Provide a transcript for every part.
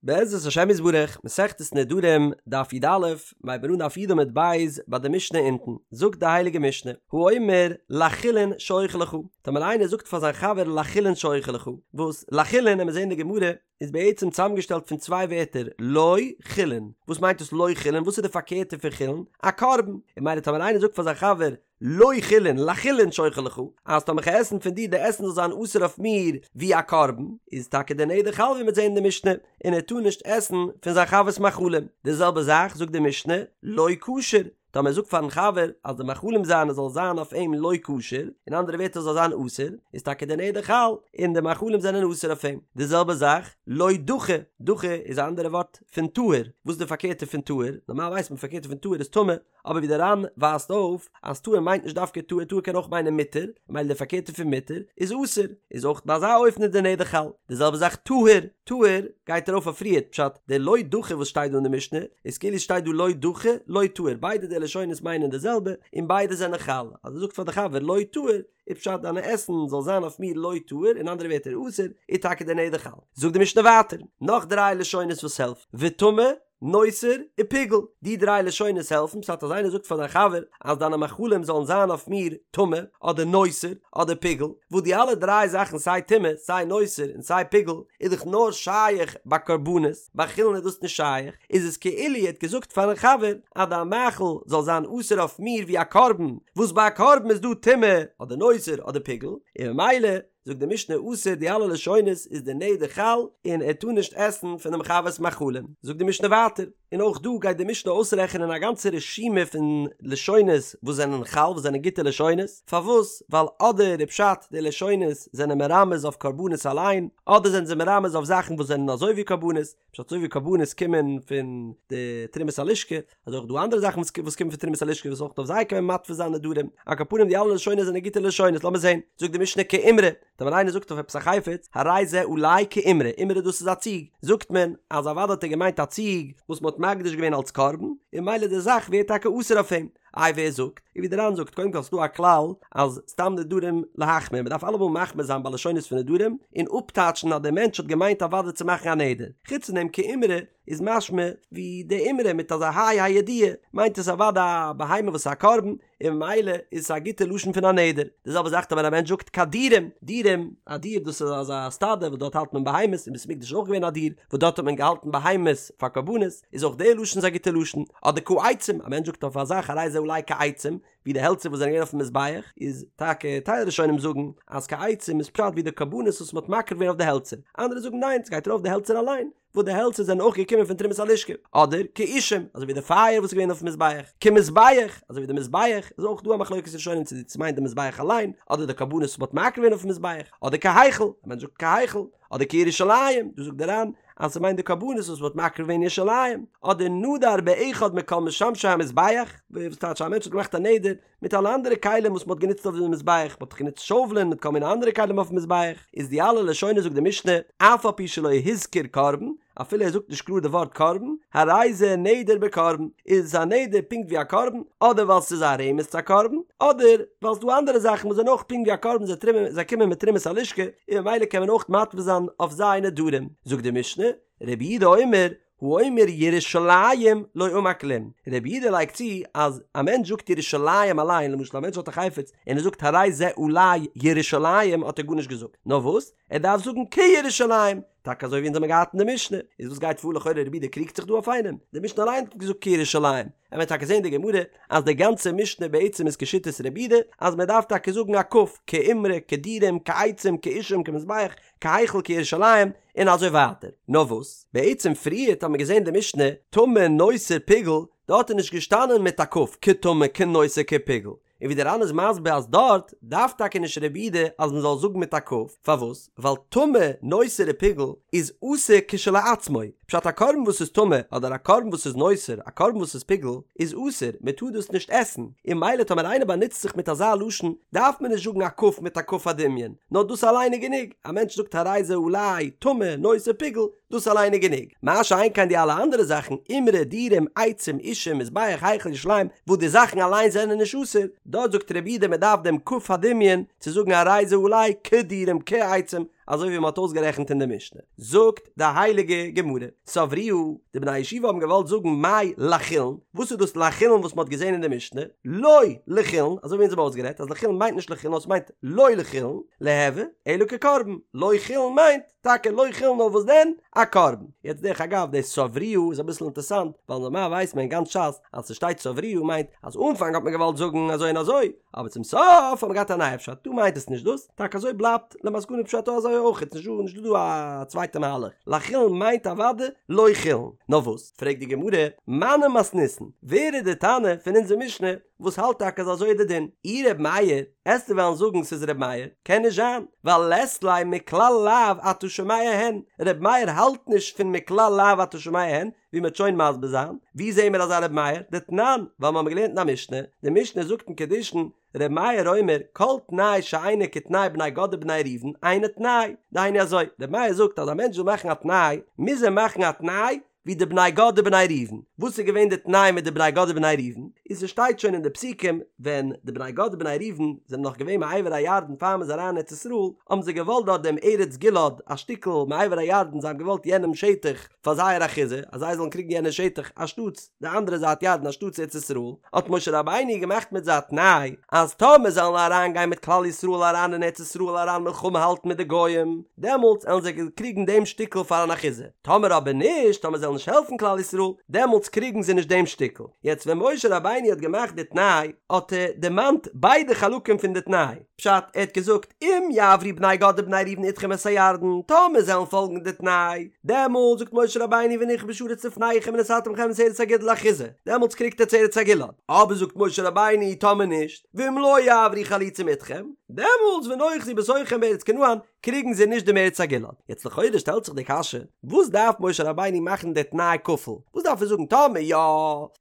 בעזרת השם יתברך, מסכת נדרים, דף י"א, מ'הייבט אן דף י' עמוד ב' ביי די משנה אונטן, זאגט די הייליגע משנה, האומר לחולין שאוכל לך, טאמער איינער זאגט פאר זיין חבר לחולין שאוכל לך, וואס לחולין, עמיר זען אין די גמרא, איז בעצם צוזאמגעשטעלט פון צוויי ווערטער, לא חולין, וואס מיינט דאס לא חולין, וואס איז די פארקערטע פון חולין? א קרבן, און ממילא טאמער איינער זאגט פאר זיין חבר לא חולין, לחולין שאוכל לך, אז טאמער כ'על עסן פון דיר די עסן זאל זיין אסור אויף מיר ווי א קרבן, איז טאקע די נדר חל ווי מ'וועט זען אין די משנה, און ער טאר נישט עסן פון זיין חבר'ס מאכלים. די זעלבע זאך זאגט די משנה, לא כשר, טאמער ער זאגט פארן חבר אז די מאכלים זיינע זאל זיין אויף אים לא כשר, אין אנדערע ווערטער זאל זיין אסור, איז טאקע די נדר חל, און די מאכלים זענען אסור אויף אים. די זעלבע זאך, לא דכי, דכי איז א אנדערע ווארט פון טהור, וואס איז די פארקערטע פון טהור? נארמאל ווייסט מען פארקערטע פון טהור איז טמא, אבער ווי דער ר"ן ווייזט אויף אז טהור מיינט נישט דווקא טהור, טהור קען אויך מיינען מותר, ממילא די פארקערטע פון מותר איז אסור, איז אויך ביי אזא אופן איז די נדר חל. די זעלבע זאך טהור, טהור גייט ארויף אויף פריערט, פשט, די לא דכי וואס שטייט דא אין די משנה, איז כאילו שטייט דא לא דכי, לא טהור, ביידע די לשונות מיינען די זעלבע, און ביידע זענען חל, אז ער זאגט פאר די חבר לא טהור, איז פשט דיינע עסן זאל זיין אויף מיר לא טהור, אין אנדערע ווערטער אסור, איז טאקע די נדר חל. זאגט די משנה ווייטער, נאך דריי לשונות וואס העלפט, וטמא, נותר ופיגול, די דריי לשונות העלפן, פשט אז איינער זאגט פאר זיין חבר אז דיינע מאכלים זאלן זיין אויף מיר טמא, אדער נותר, אדער פיגול, וואס די אלע דריי זאכן סיי טומאה, סיי נותר, און סיי פיגול, איז דאך נאר שייך ביי קרבנות, ביי חולין איז דאס נישט שייך, איז עס כאילו ער האט געזאגט פארן חבר אז דיין מאכל זאל זיין אסור אויף מיר ווי א קרבן, וואס ביי א קרבן איז דא טומאה, אדער נותר, אדער פיגול, און ממילא זאגט די משנה אסור די אלע לשונות איז די נדר חל און ער טאר נישט עסן פונעם חבר'ס מאכלים, זאגט די משנה ווייטער, און אויך דא גייט די משנה אויסרעכענען א גאנצע רשימה פון לשונות וואס זענען חל וואס זענען גוטע לשונות, פארוואס? ווייל אדער איז פשט די לשונות זענען מרמז אויף קרבנות אליין, אדער זענען זיי מרמז אויף זאכן וואס זענען אזוי ווי קרבנות, פשט אזוי ווי קרבנות קומען פון די תרומת הלשכה, אזוי אויך דא אנדערע זאכן וואס קומען פון תרומת הלשכה וואס אויך אויף זיי קען מען מתפיס זיין נדרים, על כל פנים די אלע לשונות זענען גוטע לשונות, לאמיר זען, זאגט די משנה כאימרא, טאמער איינער זאגט אויף עפעס א חפץ, הרי זה עלי כאימרא, אימרא דאס איז א ציג, זאגט מען אז אוודאי האט ער געמיינט א ציג וואס מען האט מקדיש געווען אלס קרבן, און ממילא די זאך ווערט טאקע אסור אויף אים. איי ווער זאגט? און ווי די ר"ן זאגט, קודם כל ס'דא א כלל אז סתם נדרים להחמיר, מ'דארף אלעמאל מחמיר זיין ביי לשונות פון נדרים, און אפטייטשן אז דער מענטש האט געמיינט אוודאי צו מאכן א נדר. חוץ פון דעם כאימרא איז משמע ווי די אימרא מיט אזא ה' הידיעה מיינט עס אוודאי א בהמה וואס איז א קרבן, און ממילא איז עס א גוטע לשון פון א נדר. די זעלבע זאך ווען א מענטש זאגט כדירים, דירים, א דיר דאס איז אזא סטאדע וואס דארט האלט מען בהמות, אין בית המקדש איז אויך געווען א דיר וואס דארט האט מען געהאלטן בהמות פאר קרבנות, איז אויך די לשון איז א גוטע לשון. אדער כעצים, א מענטש זאגט אויף א זאך הרי זה עלי כעצים, ווי די העלצער וואס זענען געווען אויפן מזבח, איז טאקע טייל ראשונים זאגן אז כעצים איז פשט ווי די קרבנות וואס מען האט מקריב געווען אויף די העלצער, אנדערע זאגן ניין ס'גייט ארויף די העלצער אליין, וואס די העלצער זענען אויך געקומען פון תרומת הלשכה, אדער כאישים, אזוי ווי די פייער וואס איז געווען אויפן מזבח, כמזבח, אזוי ווי די מזבח, איז אויך דא א מחלוקת ראשונים צו דאס מיינט די מזבח אליין, אדער די קרבנות וואס מ'האט מקריב געווען אויפן מזבח, אדער כהיכל, א מענטש זאגט כהיכל, אדער כירושלים, דא זאגט דער ר"ן אז ס'מיינט די קרבנות וואס מ'האט מקריב געווען אין ירושלים, אדער נדר באחד מכל משמשי המזבח, וואס טייטש א מענטש האט געמאכט א נדר מיט אלע אנדערע כלים וואס מ'האט גענוצט אויף די מזבח, מ'האט דאך גענוצט שאוולען מיט כל מיני אנדערע כלים אויפן מזבח, איז די אלע לשונות זאגט די משנה, אף על פי שלא הזכיר קרבן, אפילו ער זאגט נישט קלאר די ווארט קרבן, הרי זה נדר בקרבן, איז עס א נדר פונקט ווי א קרבן, אדער ווייל ס'איז א רמז צו א קרבן, אדער ווייל ס'דא אנדערע זאכן וואס זענען אויך פונקט ווי א קרבן זיי טרומען זיי קומען מיט תרומת הלשכה, און ממילא קען מען אויך מתפיס זיין אויף זיי נדרים. זאגט די משנה, רבי יהודה אומר, האומר ירושלים לא אמר כלום, רבי יהודה לייגט צו אז א מענטש זאגט ירושלים אליין, למשל א מענטש האט א חפץ און ער זאגט הרי זה עלי ירושלים האט ער גארנישט געזאגט, נאר וואס? ער דארף זאגן כירושלים, טאקע אזוי ווי אונז האבן געהאט אין די משנה, איז וואס גייט פאר לכאורה רבי יהודה קריגט זיך דא אויף איינעם, די משנה אליין האט געזאגט כירושלים, עמיר טאקע זעהן די גמרא אז די גאנצע משנה בעצם איז כשיטת רבי יהודה אז מען דארף טאקע זאגן א כ"ף, כאימרא, כדירים, כעצים, כאישים, כמזבח, כהיכל כירושלים, און אזוי ווייטער. נאר וואס, בעצם פריערט האט מען געזען די משנה, טמא נותר פיגול, דארט איז נישט געשטאנען מיט א כ"ף, כטמא כנותר כפיגול, און ווי דער ר"ן איז מסביר אז דארט דארף טאקע נישט רבי יהודה אז מען זאל זאגן מיט א כ"ף, פארוואס? ווייל טמא נותר ופיגול איז אסור כשלעצמו, פשט א קרבן וואס איז טמא אדער א קרבן וואס איז נותר א קרבן וואס איז פיגול איז אסור מען טאר דאס נישט עסן, און ממילא טאמער איינער באנוצט זיך מיט אזא לשון דארף מען נישט זאגן א כ"ף מיט א כ"ף הדמיון, נאר דאס אליין איז גענוג, א מענטש זאגט הרי זה עלי טמא נותר פיגול, דאס אליין איז גענוג. מה שאין כן די אלע אנדערע זאכן, אימרא, דירים, עצים, אישים, מזבח, היכל, ירושלים, וואס די זאכן אליין זענען נישט אסור, דארט זאגט רבי יהודה מען דארף דעם כ"ף הדמיון צו זאגן הרי זה עלי כדירים כעצים, אזוי ווי מען האט אויסגערעכנט אין די משנה. זאגט די הייליגע גמרא, סברוה, די בני הישיבה האבן געוואלט זאגן מאי לחולין, וואס איז דאס לחולין וואס מען האט געזען אין די משנה, לא לחולין, אזוי ווי אונז האבן אויסגערעדט אז לחולין מיינט נישט לחולין נאר עס מיינט לא לחולין, ליהוי, אלא כקרבן, לא חולין מיינט טאקע לא חולין נאר וואס דען? א קרבן. יעצט דרך אגב די סברוה איז אביסל אינטערסאנט, ווייל נארמאל ווייסט מען אין גאנץ ש"ס אז ס'שטייט סברוה מיינט אז אנפאנג האט מען געוואלט זאגן אזוי און אזוי, אבער צום סוף האט מען געהאט א נייע פשט, דא מיינט עס נישט דאס, טאקע אזוי בלייבט למסקנא פשט אזוי אויך, איז נישט דא נישט דא א צווייטע מהלך, לחולין מיינט אוודאי לא חולין, נאר וואס? פרעגט די גמרא, מני מתניתין, ווער איז די תנא פון אונזער משנה וואס האלט טאקע אז אזוי איז די דין? אי ר' מאיר, עסטו וועלן זאגן ס'איז ר' מאיר? קען נישט זיין, ווייל לית ליה מכלל לאו אתה שומע הן, ר' מאיר האלט נישט פון מכלל לאו אתה שומע הן, ווי מ'וועט שוין מסביר זיין, ווי זעהן מיר אזא ר' מאיר? דתנן, ווייל מ'האמיר געלערנט אין א משנה, די משנה זאגט אין קידושין, ר' מאיר אומר, כל תנאי שאינו כתנאי בני גד ובני ראובן, אינו תנאי. דהיינו אזוי, ר' מאיר זאגט אז א מענטש וויל מאכן א תנאי, מוז ער מאכן א תנאי ווי די בני גד ובני ראובן. וואס איז געווען די תנאי מיט די בני גד ובני ראובן? איז ס'שטייט שוין אין די פסוקים, ווען די בני גד ובני ראובן זענען נאך געווען מעבר הירדן פאר מ'איז אריין אין ארץ ישראל, האבן זיי געוואלט דארט דעם ארץ גלעד, א שטיקל מעבר הירדן, זיי האבן געוואלט יענעם שטח, פאר זייער אחוזה, אז זיי זאלן קריגן יענע שטח אנשטאטס די אנדערע זייט ירדן אנשטאטס ארץ ישראל, האט משה רבינו געמאכט מיט זיי א תנאי, אז טאמער זיי וועלן אריין גיין מיט כלל ישראל אריין אין ארץ ישראל אריין מלחמה האלטן מיט די גוים, דעמאלטס עלן זיי קריגן דעם שטיקל פאר אן אחוזה, טאמער אבער נישט, טאמער זיי וועלן נישט העלפן כלל ישראל, דעמאלטס קריגן זיי נישט דעם שטיקל. יעצט ווען משה רבינו האט געמאכט די תנאי, האט ער דערמאנט ביידע חלקים פון די תנאי, פשט, ער האט געזאגט, אם יעברו בני גד ובני ראובן אתכם את הירדן, טאמער זיי וועלן פאלגן די תנאי, דעמאלט זאגט משה רבינו ונכבשה הארץ לפניכם ונתתם לכם את ארץ הגלעד לאחוזה, דעמאלטס קריגט עטס ארץ הגלעד, אבער זאגט משה רבינו, טאמער נישט, ואם לא יעברו חלוצים אתכם, דעמאלטס ונאחזו בתוככם בארץ כנען, קריגן זיי נישט דעם ארץ הגלעד. יעצט לכאורה שטעלט זיך די קשיא, וואס דארף משה רבינו מאכן די תנאי כפול? וואס דארף ער זאגן טאמער יא,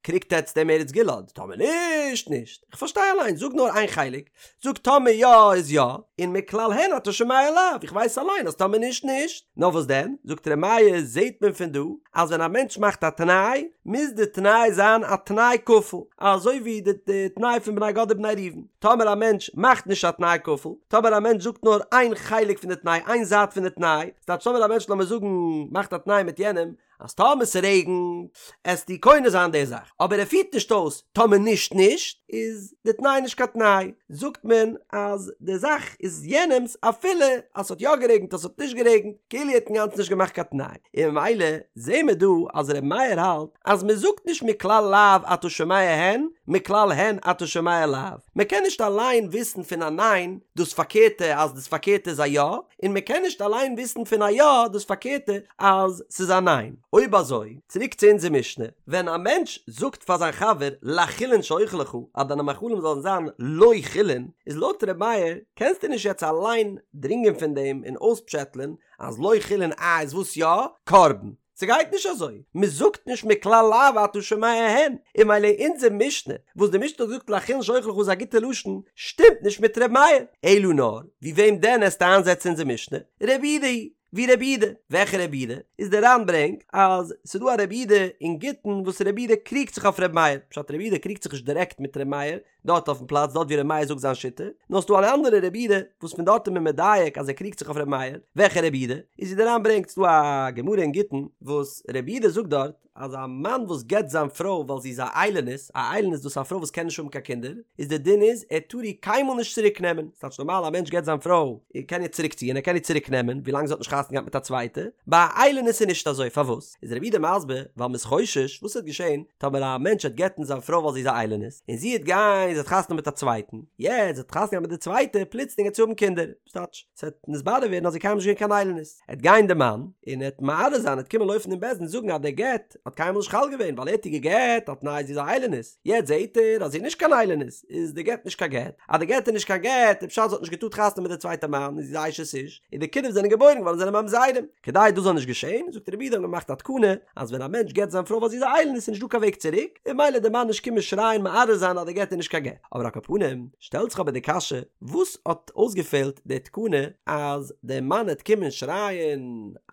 קריגט עטס דעם ארץ גלעד, טאמער נישט, נישט. איך פארשטיי אליין, זאג נאר איין חלק, זאג טאמער יא איז יא, און מכלל הן אתה שומע לאו, איך ווייס אליין אז טאמער נישט נישט. נאר וואס דען, זאגט ר' מאיר, זעהט מען פון דא אז ווען א מענטש מאכט א תנאי, מוז די תנאי זיין א תנאי כפול, אזוי ווי די תנאי פון בני גד ובני ראובן. טאמער א מענטש מאכט נישט א תנאי כפול, טאמער א מענטש זאגט נאר איין חלק פון די תנאי, איין זייט פון די תנאי, ס'טייטש טאמער א מענטש לאמיר זאגן מאכט א תנאי מיט יענעם, אז טאמער ס'רעגנט עסטו קונה זיין די זאך, אבער ער פירט נישט אויס טאמער נישט נישט, איז די תנאי נישט קיין תנאי, זאגט מען אז די זאך איז יענעמ'ס אפילו אז ס'האט יא גערעגנט אז ס'האט נישט גערעגנט, כאילו ער האט אינגאנצן נישט געמאכט קיין תנאי, און ממילא זעהן מיר דא אז ר' מאיר האלט אז מען זאגט נישט מכלל לאו אתה שומע הן, מכלל הן אתה שומע לאו, מען קען נישט אליין וויסן פון א ניין דאס פארקערטע אז דאס פארקערטע איז א יא, און מען קען נישט אליין וויסן פון א יא דאס פארקערטע אז ס'איז א ניין. אויב אזוי, צוריק צו אונזער משנה, ווען א מענטש זאגט פאר זיין חבר לחולין שאוכל לך אז דיינע מאכלים זאלן זיין לא חולין, איז לויט ר' מאיר קענסטו נישט יעצט אליין דרינגען פון דעם און אויספשעטלען אז לא חולין אה איז וואס יא? קרבן. ס'גייט נישט אזוי, מ'זאגט נישט מכלל לאו אתה שומע הן, און ממילא אונזער משנה, וואס די משנה האט געזאגט לחולין שאוכל לך איז א גוטע לשון, שטימט נישט מיט ר' מאיר. אלא נאר, ווי וועם דען עסטו איינזעצן אונזער משנה? רבי יהודה היא, ווי רבי יהודה. וועלכע רבי יהודה? איז דער ר"ן ברענגט אז ס'דא א רבי יהודה אין גיטין וואס רבי יהודה קריגט זיך אויף ר' מאיר, פשט רבי יהודה קריגט זיך נישט דירעקט מיט ר' מאיר, דארט אויפן פלאץ דארט ווי ר' מאיר זאגט זיין שיטה, נאר ס'דא אן אנדערע רבי יהודה וואס פון דארט איז מען מדייק אז ער קריגט זיך אויף ר' מאיר, וועלכע רבי יהודה? איז ווי דער ר"ן ברענגט ס'דא א גמרא אין גיטין וואס רבי יהודה זאגט דארט אז א מאן וואס גט זיין פרוי ווייל זי איז א איילונית, א איילונית דאס איז א פרוי וואס קען נישט האבן קיין קינדער, איז דער דין איז ער טאר איר קיינמאל נישט צוריק נעמען, ס'טייטש נארמאל א מענטש גט זיין פרוי ער קען איר צוריק ציען ער קען איר צוריק נעמען ווילאנג זי האט נישט חתונה געהאט מיט א צווייטע, ביי א איילונית איז נישט אזוי פארוואס? איז רבי יהודה מסביר, ווייל מ'איז חושש, וואס וועט געשען טאמער א מענטש וועט גט'ן זיין פרוי ווייל זי איז א איילונית, און זי וועט גיין, זי האט חתונה מיט א צווייטן, יעצט זי האט חתונה געהאט מיט די צווייטע, פלוצלינג וועט זי האבן קינדער, ס'טייטש, ס'וועט נתברר ווערן אז זי איז קיינמאל נישט געווען קיין איילונית, עט גיין די מאן, און ער וועט מערער זיין, ער וועט קומען לויפן אין בית דין זאגן אז דער גט האט קיינמאל נישט חל געווען, ווייל ער האט איר גע'גט על תנאי זי איז א איילונית, יעצט זעהט ער אז זי איז נישט קיין איילונית, איז די גט נישט קיין גט, אז די גט איז נישט קיין גט, איז פשט זי האט נישט געטארט חתונה מיט די צווייטע מאן, און זי איז א אשת איש, און די קינדער וואס זענען געבוירן געווארן זענען ממזרים. כדי דאס זאל נישט געשען, זאגט רבי יהודה האט מען געמאכט א תקנה, אז ווען א מענטש גט זיין פרוי ווייל זי איז א איילונית איז נישט דא קיין וועג צוריק, און ממילא די מאן נישט קומען שרייען מערער זיין אז די גט איז נישט קיין. קיין גט. אבער על כל פנים, שטעלט זיך אבער די קשיא, וואס האט אויסגעפעלט די תקנה אז דער מאן העט קומען שרייען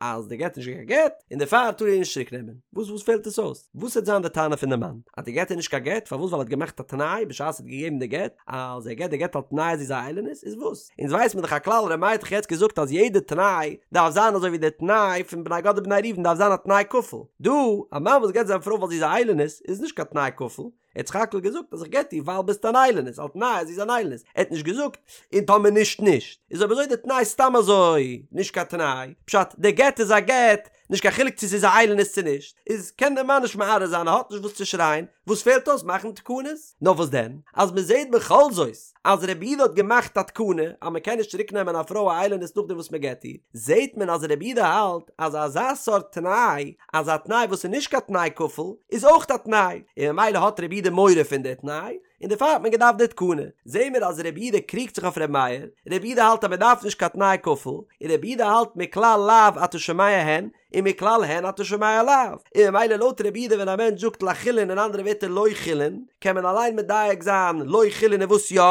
אז די גט איז נישט קיין גט, און דערפאר טאר ער איר נישט צוריק נעמען? וואס וואס פעלט עס אויס? וואס העט זיין די טענה פון די מאן? אז די גט איז נישט קיין גט? פארוואס ווייל ער האט געמאכט א תנאי בשעת ער האט געגעבן די גט אז ער געט די גט על תנאי אז זי איז א איילונית? איז וואס? אונז ווייס מיר דאך א כלל ר' מאיר האט דאך יעצט געזאגט אז יעדע תנאי דארף זיין אזוי ווי די תנאי פון בני גד ובני ראובן דארף זיין א תנאי כפול. דא, א מאן וואס גט זיין פרוי ווייל זי איז א איילונית איז נישט קיין תנאי כפול, ער האט סך הכל געזאגט אז איך גט דיר ווייל ביסט אן איילונית על תנאי אז זי איז אן איילונית, ער האט נישט געזאגט און טאמער נישט נישט, איז אויב אזוי די תנאי סתם אזוי נישט קיין תנאי, פשט די גט איז א גט נישט קיין חילוק צו ס'איז א איילונית צו נישט, איז קען דער מאן נישט מערער זיין ער האט נישט וואס צו שרייען, וואס פעלט אויס מאכן תקנות? נאר וואס דען אז מען זעט בכל זאת אז רבי יהודה האט געמאכט א תקנה אז מען קען נישט צוריק נעמען א פרוי א איילונית נאכדעם וואס מען גט איר, זעט מען אז רבי יהודה האלט אז אזא סארט תנאי, אז א תנאי וואס איז נישט קיין תנאי כפול, איז אויך א תנאי, און ממילא האט רבי יהודה מורא פון די תנאי, און דערפאר האט מען געדארפט די תקנה. זעהן מיר אז רבי יהודה קריגט זיך אויף רבי מאיר, רבי יהודה האלט אז מען דארף נישט קיין תנאי כפול, און רבי יהודה האלט מכלל לאו אתה שומע הן, און מכלל הן אתה שומע לאו, און ממילא לויט רבי יהודה ווען א מענטש זאגט לחולין אין אנדערע ווערטער לא חולין, קען מען אליין מדייק זיין לא חולין איז וואס יא?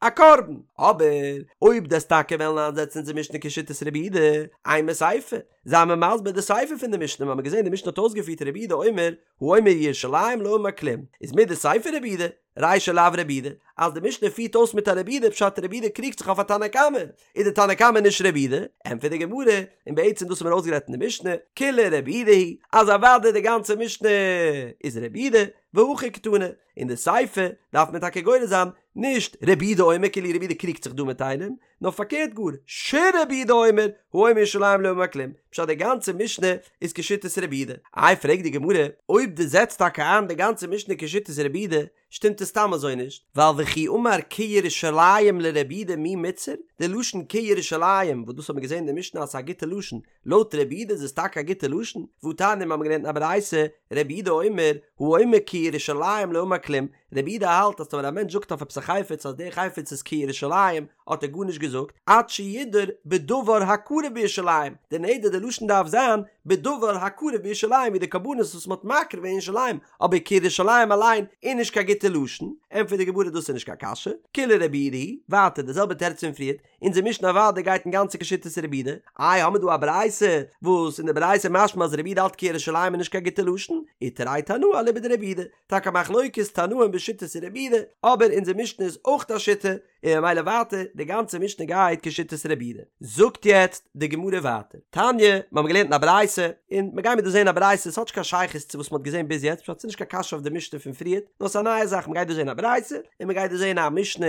א קרבן. אבער אויב דו'סט טאקע וועלן איינזעצן אונזער משנה כשיטת רבי יהודה, אימא סיפא, זיי מיר מסביר די סיפא פון די משנה, מיר האבן געזען די משנה האט אויסגעפירט רבי יהודה אומר האומר ירושלים לא אמר כלום, איז מדסיפא רבי יהודה, רישא לאו רבי יהודה, אז די משנה פירט אויס מיט א רבי יהודה פשט רבי יהודה קריגט זיך אויף א תנא קמא, איז די תנא קמא נישט רבי יהודה, ענטפערט די גמרא, און בעצם דאס האט מען אויסגערעדט אין די משנה, כולה רבי יהודה היא, אז אוודאי די גאנצע משנה איז רבי יהודה, והכי קתני, אין די סיפא דארף מען טאקע גורס זיין, נישט רבי יהודה אומר כאילו רבי יהודה קריגט זיך דא מיט איינעם, נאר פארקערט גאר, שרבי יהודה אומר, האומר ירושלים לא אמר כלום, פשט די גאנצע משנה איז כשיטת רבי יהודה. איי פרעגט די גמרא, אויב דו זעצט טאקע איין די גאנצע משנה כשיטת רבי יהודה, שטימט עס סתם אזוי נישט, ווייל וכי אמר כירושלים לרבי יהודה מי מיתסר, די לשון כירושלים, וואס דאס האט מען געזען אין די משנה אז ס'איז א גוטע לשון, לויט רבי יהודה איז עס טאקע א גוטע לשון, והתניא מיר האבן געלערנט אין א ברייתא, רבי יהודה אומר, האומר כירושלים לא אמר כלום, רבי יהודה האלט אז טאמער א מענטש זאגט אויף עפעס א חפץ אז דער חפץ איז כירושלים האט ער גארנישט געזאגט, עד שידור בדבר הקרב בירושלים, די נדר די לשון דארף זיין בדבר הקרב בירושלים ווי די קרבנות וואס מען האט מקריב אין ירושלים, אבער כירושלים אליין איז נישט קיין גוטע לשון, ענטפערט די גמרא דאס איז נישט קיין קשיא, כולה רבי יהודה היא, ווייטער די זעלבע תירוץ פון פריערט, אונזער משנה אוודאי גייט אינגאנצן כשיטת רבי יהודה, איי האמיר דא א ברייתא וואס אין די ברייתא משמע אז רבי יהודה האלט כירושלים איז נישט קיין גוטע לשון, ותרי תנאי אליבא דרבי יהודה, טאקע מחלוקת תנאים בשיטת רבי יהודה, אבער אונזער משנה איז אויך א שיטה, און ממילא ווייטער די גאנצע משנה גייט כשיטת רבי יהודה. זאגט יעצט די גמרא ווייטער, תניא, מיר האבן געלערנט אין א ברייתא, און מיר גיימיר דא זען א ברייתא, עס האט נישט קיין שייכות צו וואס מען האט געזען ביז יעצט, פשט ס'איז נישט קיין קשיא אויף די משנה פון פריערט, נאר ס'איז א נייע זאך, מען גייט דא זען א ברייתא, און מען גייט דא זען א משנה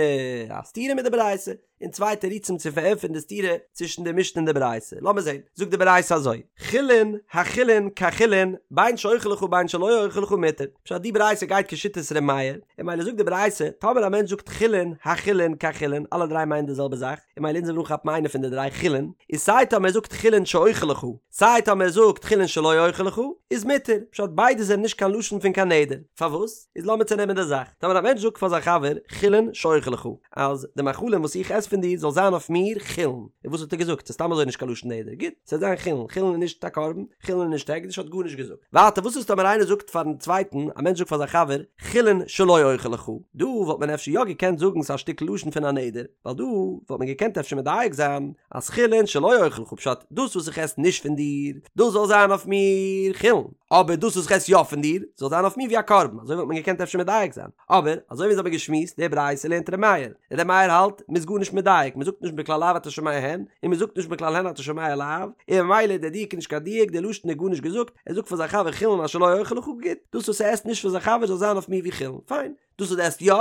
א סתירה מיט די ברייתא, און צוויי תירוצים צו פארענטפערן די סתירה צווישן די משנה און די ברייתא. לאמיר זען, זאגט די ברייתא אזוי, חולין החולין כחולין, בין שאוכל לך בין שלא אוכל לך מותר. פשט די ברייתא גייט כשיטת ר' מאיר, און ממילא זאגט די ברייתא, טאמער א מענטש זאגט חולין, החולין, כחולין, אלע דריי מיינען די זעלבע זאך, און ממילא אונז וועלן אנכאפן איינע פון די דריי חולין, איז סיי טאמער ער זאגט חולין שאוכל לך, סיי טאמער ער זאגט חולין שלא אוכל לך, איז מותר, פשט ביידע זענען נישט קיין לשון פון קיין נדר. פארוואס? איז לאמיר צונעמען די זאך. טאמער א מענטש זאגט פאר זיין חבר חולין שאוכל לך, אז די מאכלים וואס איך עס פון דיר זאל זיין אויף מיר חולין, און וואס האט ער געזאגט? ס'איז סתם אזוי נישט קיין לשון נדר, גוט, ס'זאל זיין חולין, חולין איז נישט א קרבן, חולין איז נישט הקדש, האט גארנישט געזאגט. ווייטער וואס איז טאמער איינער זאגט פארן צווייטן, א מענטש זאגט פאר זיין חבר, חולין שלא אוכל לך, דא וואלט מען אפשר יא געקענט זאגן ס'איז א שטיקל לשון פון א נדר, ווייל דא וואלט מען געקענט אפשר מדייק זיין אז חולין שלא אוכל לך פשט דאס וואס איך עס נישט פון דיר, דאס זאל זיין אויף מיר חולין. אבער דאס וואס איך עס יא פון דיר, זאל זיין אויף מיר ווי א קרבן, אזוי וואלט מען געקענט אפשר מדייק זיין. אבער, אזוי ווי אונז האבן געשמועסט, די ברייתא לערנט ר' מאיר. ר' מאיר האלט, מ'איז גארנישט מדייק, מ'זאגט נישט מכלל לאו אתה שומע הן, און מ'זאגט נישט מכלל הן אתה שומע לאו, און ממילא דער דיוק איז נישט קיין דיוק, דער לשון איז גארנישט געזאגט, ער זאגט פאר זיין חבר חולין אשר לא אוכל לך, גוט, דאס וואס ער עסט נישט פון זיין חבר זאל זיין אויף מיר ווי חולין, פיין. דאס וואס דו עסט יא?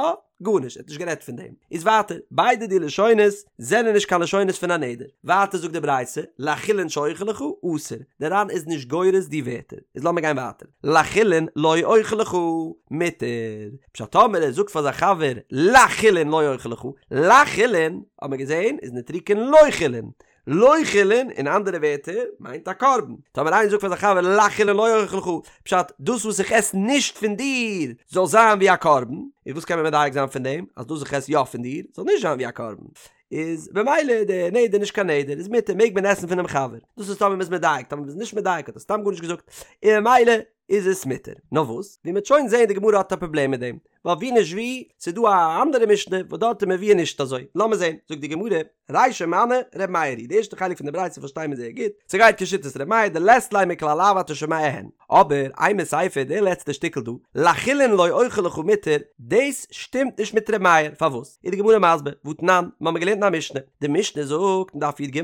גארנישט, ער האט נישט גערעדט פון דעם. איז ווייטער, ביידע די לשונות זענען נישט קיין לשונות פון א נדר. ווייטער זאגט די ברייתא, לחולין שאוכל לך, אסור. דער ר"ן איז נישט גורס די ווערטער. איז לאמיר גיין ווייטער. לחולין לא אוכל לך, מותר. פשט טאמער ער זאגט פאר זיין חבר לחולין לא אוכל לך, לחולין, האט מען געזען, איז נוטריקון לא חולין. לא חולין, אין אנדערע ווערטער, מיינט א קרבן. טאמער איינער זאגט פאר זיין חבר לחולין לא אוכל לך, פשט, דאס וואס איך עס נישט פון דיר זאל זיין ווי א קרבן, איז וואס קען מען מדייק זיין פון דעם? אז דאס וואס איך עס יא פון דיר זאל נישט זיין ווי א קרבן. איז במילא די נדר נישט קיין נדר, איז מותר, מעג מען עסן פונעם חבר. דאס איז טאמער מ'איז מדייק, טאמער מ'איז נישט מדייק האט ער סתם גארנישט געזאגט, און ממילא איז עס מותר. נאר וואס, ווי מ'וועט שוין זען די גמרא האט א פראבלעם מיט דעם. ווייל ווי נישט ווי, ס'איז דא א אנדערע משנה וואס דארט איז מבואר נישט אזוי, לאמיר זען, זאגט די גמרא, רישא מני ר' מאיר היא, די ערשטע חלק פון די ברייתא פארשטיי מיר זייער גוט, ס'גייט כשיטת ר' מאיר דלית ליה מכלל לאו אתה שומע הן, אבער אימא סיפא די לעצטע שטיקל דא, לחולין לא אוכל לך מותר, דאס שטימט נישט מיט ר' מאיר, פארוואס? איז די גמרא מסביר, והתנן, מ'האמיר געלערנט אין א משנה, די משנה זאגט אין דף י"ג,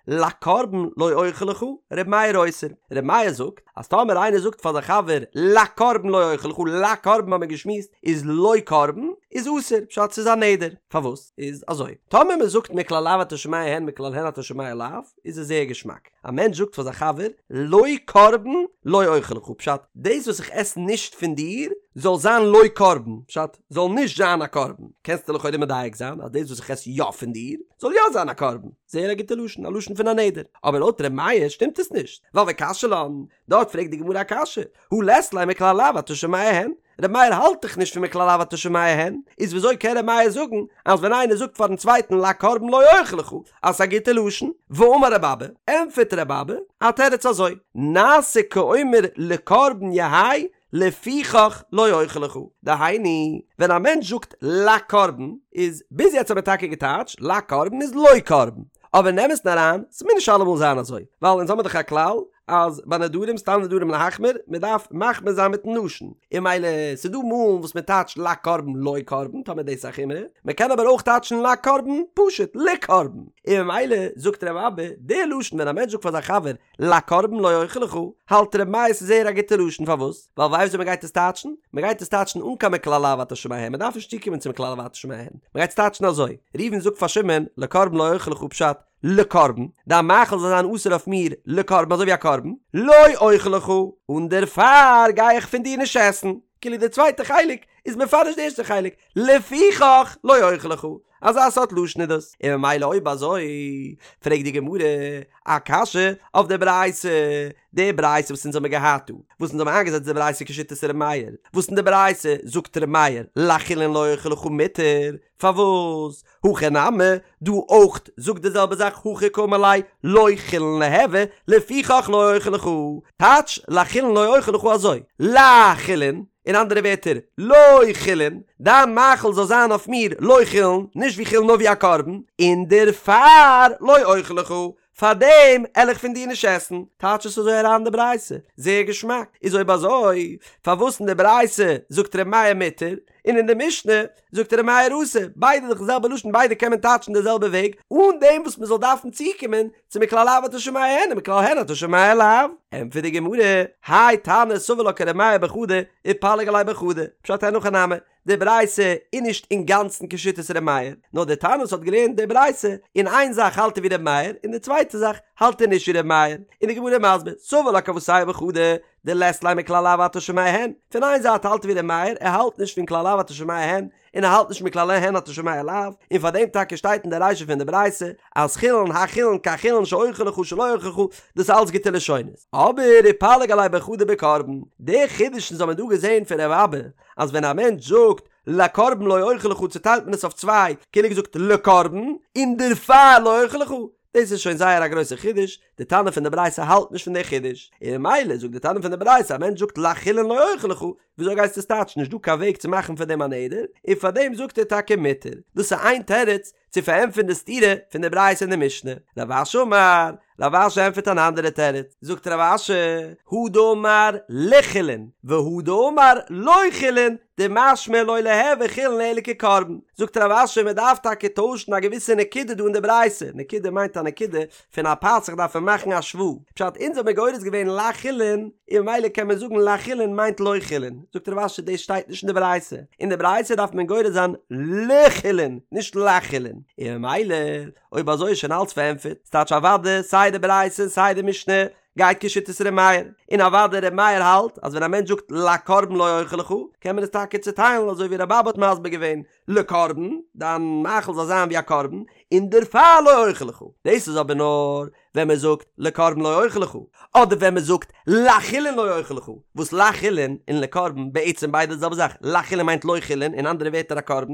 לקרבן לא אוכל לך, ר' מאיר אוסר, ר' מאיר זאגט אז טאמער איינער זאגט פאר זיין חבר לקרבן לא אוכל לך, לקרבן האמיר געשמועסט איז לא קרבן, איז אסור, פשט ס'איז א נדר, פארוואס? איז אזוי, טאמער מען זאגט מכלל לאו אתה שומע הן מכלל הן אתה שומע לאו, איז עס זייער געשמאק. א מענטש זאגט פאר זיין חבר, לא קרבן לא אוכל לך, פשט, דאס וואס איך עס נישט פון דיר, זאל זיין לא קרבן, פשט, זאל נישט זיין א קרבן. קענסטו לכאורה מדייק זיין אז דאס וואס איך עס יא פון דיר, זאל יא זיין א קרבן. זייער א גוטע לשון, א לשון פון א נדר. אבער לויט ר' מאיר שטימט עס נישט, ווייל וקשיא לן, דארט פרעגט די גמרא א קשיא, הא לית ליה מכלל לאו אתה שומע הן, ר' מאיר האלט דאך נישט פון מכלל לאו אתה שומע הן, איז וויאזוי קען ר' מאיר זאגן אז ווען איינער זאגט פארן צווייטן לקרבן לא אוכל לך אז ס'איז א גוטע לשון? ואמר ר' אבא, ענטפערט ר' אבא א תירוץ אזוי, נעשה כאומר לקרבן יהא לפיכך לא אוכל לך, דהיינו, ווען א מענטש זאגט לקרבן, איז ביז יעצט האט מען טאקע געטייטשט לקרבן איז לא קרבן, אבער אין אמת'ן אריין, ס'מוז נישט אלעמאל זיין אזוי, ווייל אונז האמיר דאך א כלל אז ביי נדרים סתם נדרים להחמיר, מען דארף מחמיר זיין מיטן לשון, און ממילא ס'דא מאלן וואס מען טייטשט לקרבן לא קרבן, טאמער דאס איז א חומרא, מען קען אבער אויך טייטשן לקרבן פשוט לקרבן, און ממילא זאגט ר' אבא, די לשון ווען א מענטש זאגט פאר זיין חבר לקרבן לא אוכל לך, האלט ר' מאיר ס'איז זייער א גוטע לשון פארוואס? ווייל ווייסט ווי מען גייט עס טייטשן? מען גייט עס טייטשן אן קיין מכלל לאו אתה שומע הן, מען דארף נישט צוקומען צום מכלל לאו אתה שומע הן, מען גייט עס טייטשן אזוי, ראובן זאגט פאר שמעון לקרבן לא אוכל לך פשט, לקרבן, דיין מאכל זאל זיין אסור אויף מיר לקרבן אזוי ווי א קרבן, לא אוכל לך, און דערפאר גיי איך פון דיר נישט עסן, כאילו די צווייטע חלק איז מפרש די ערשטע חלק, לפיכך לא אוכל לך, אזא סארט לשון איז דאס, און ממילא אויב אזוי פרעגט די גמרא א קשיא אויף די ברייתא, די ברייתא וואס אונז האמיר געהאט דא, וואס אונז האמיר איינגעזעצט די ברייתא כשיטת ר' מאיר, וואס אין די ברייתא זאגט ר' מאיר לחולין לא אוכל לך מותר, פארוואס? הכא נמי, דא אויך זאגט די זעלבע זאך הכי קאמר ליה לא חולין ליהוי, לפיכך לא אוכל לך, טייטש לחולין לא אוכל לך אזוי, לחולין, אין אנדערע ווערטער, לא חולין, דיין מאכל זאל זיין אויף מיר לא חולין, נישט ווי חולין נאר ווי א קרבן, און דערפאר לא אוכל לך, פארדעם על איך פון דיר נישט עסן, טייטש עס אזוי אריין די ברייתא, זייער געשמאק, איז אויב אזוי פארוואס אין די ברייתא זאגט ר' מאיר מותר, און אין די משנה זאגט ר' מאיר אסור, ביידע דאך די זעלבע לשון ביידע קען מען טייטשן די זעלבע וועג, אן דעם וואס מען זאל דארפן צוקומען צו מכלל לאו אתה שומע הן און מכלל הן אתה שומע לאו. ענטפערט די גמרא, האי תנא סבר לה כר' מאיר בחדא ופליג עליה בחדא, פשט אין הכי נמי, די ברייתא איז נישט אינגאנצן כשיטת ר' מאיר, נאר דער תנא וואס האט געלערנט די ברייתא, אין איין זאך האלט ער ווי ר' מאיר, אין די צווייטע זאך האלט ער נישט ווי ר' מאיר, און די גמרא איז מסביר, סבר לה כוותיה בחדא, דלית ליה מכלל לאו אתה שומע הן, פון איין זייט האלט ער ווי ר' מאיר, ער האלט נישט פון כלל לאו אתה שומע הן, און ער האלט נישט מכלל הן אתה שומע לאו, און פאר דעם טאקע שטייט אין די רישא פון די ברייתא אז חולין החולין כחולין שאוכל לך שלא אוכל לך, דאס איז אלץ גוטע לשונות. אבער ופליג עליה בחדא בקרבן, די חידוש אונז האבן דא געזען פון ר' אבא, אז ווען א מענטש זאגט לקרבן לא אוכל לך צוטיילט מען עס אויף צוויי, כאילו געזאגט לקרבן, און דערפאר לא אוכל לך, דאס איז שוין זייער א גרויסע חידוש, די תנא פון די ברייתא האלט נישט פון די חידוש, און ממילא זאגט די תנא פון די ברייתא א מענטש זאגט לחולין לא אוכל לך, וויאזוי גייסטו עס טייטשן נישט דא קיין וועג צו מאכן פון דעם א נדר, און פאר דעם זאגט ער טאקע מותר, דאס איז איין תירוץ צו פארענטפערן די סתירה פון די ברייתא און די משנה, רב אשי אמר, רב אשי ענטפערט אן אנדערע תירוץ, זאגט רב אשי, הא דאמר לחולין, והא דאמר לא חולין, דמשמע לא ליהוי חולין אלא כקרבן, זאגט רב אשי מען דארף טאקע טוישן א געוויסע נקודה דא אין די ברייתא, נקודה מיינט א נקודה פון א פתח דארף מען מאכן א שווא, פשט אונז האבן מיר גורס געווען לחולין, און ממילא קען מען זאגן לחולין מיינט לא חולין, זאגט רב אשי דאס שטייט נישט אין די ברייתא, אין די ברייתא דארף מען גורס זיין לחולין נישט לחולין, און ממילא אויב אזוי איז שוין אלץ פארענטפערט, ס'טייטש אוודאי סיי די ברייתא און סיי די משנה גייט כשיטת ר' מאיר, און אוודאי ר' מאיר האלט אז ווען א מענטש זאגט לקרבן לא אוכל לך, קען מען עס טאקע צוטיילן אזוי ווי ר' אבא האט מסביר געווען, לקרבן, דיין מאכל זאל זיין ווי א קרבן, און דערפאר לא אוכל לך. דאס איז אבער נאר ווען מען זאגט לקרבן לא אוכל לך, אדער ווען מען זאגט לחולין לא אוכל לך, וואס לחולין און לקרבן בעצם ביידע די זעלבע זאך, לחולין מיינט לא חולין, אין אנדערע ווערטער א קרבן,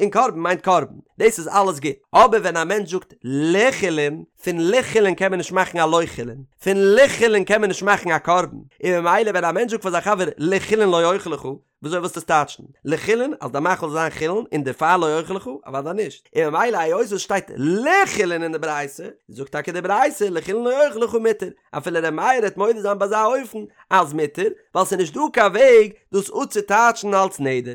און קרבן מיינט קרבן, דאס איז אלעס גוט, אבער ווען א מענטש זאגט לחולין, פון לחולין קען מען נישט מאכן א לא חולין, פון לחולין קען מען נישט מאכן א קרבן, און ממילא ווען א מענטש זאגט פאר זיין חבר לחולין לא אוכל לך, וויאזוי ווילסטו עס טייטשן? לחולין אז די מאכל זאל זיין חולין און דערפאר לא אוכל לך? אוודאי נישט. און ממילא היות עס שטייט לחולין אין די ברייתא, זאגט טאקע די ברייתא לחולין לא אוכל לך מותר, אפילו ר' מאיר העט מודה זיין ביי אזא אופן אז מותר, ווייל ס'איז נישט דא קיין וועג דאס אפצוטייטשן אלס נדר.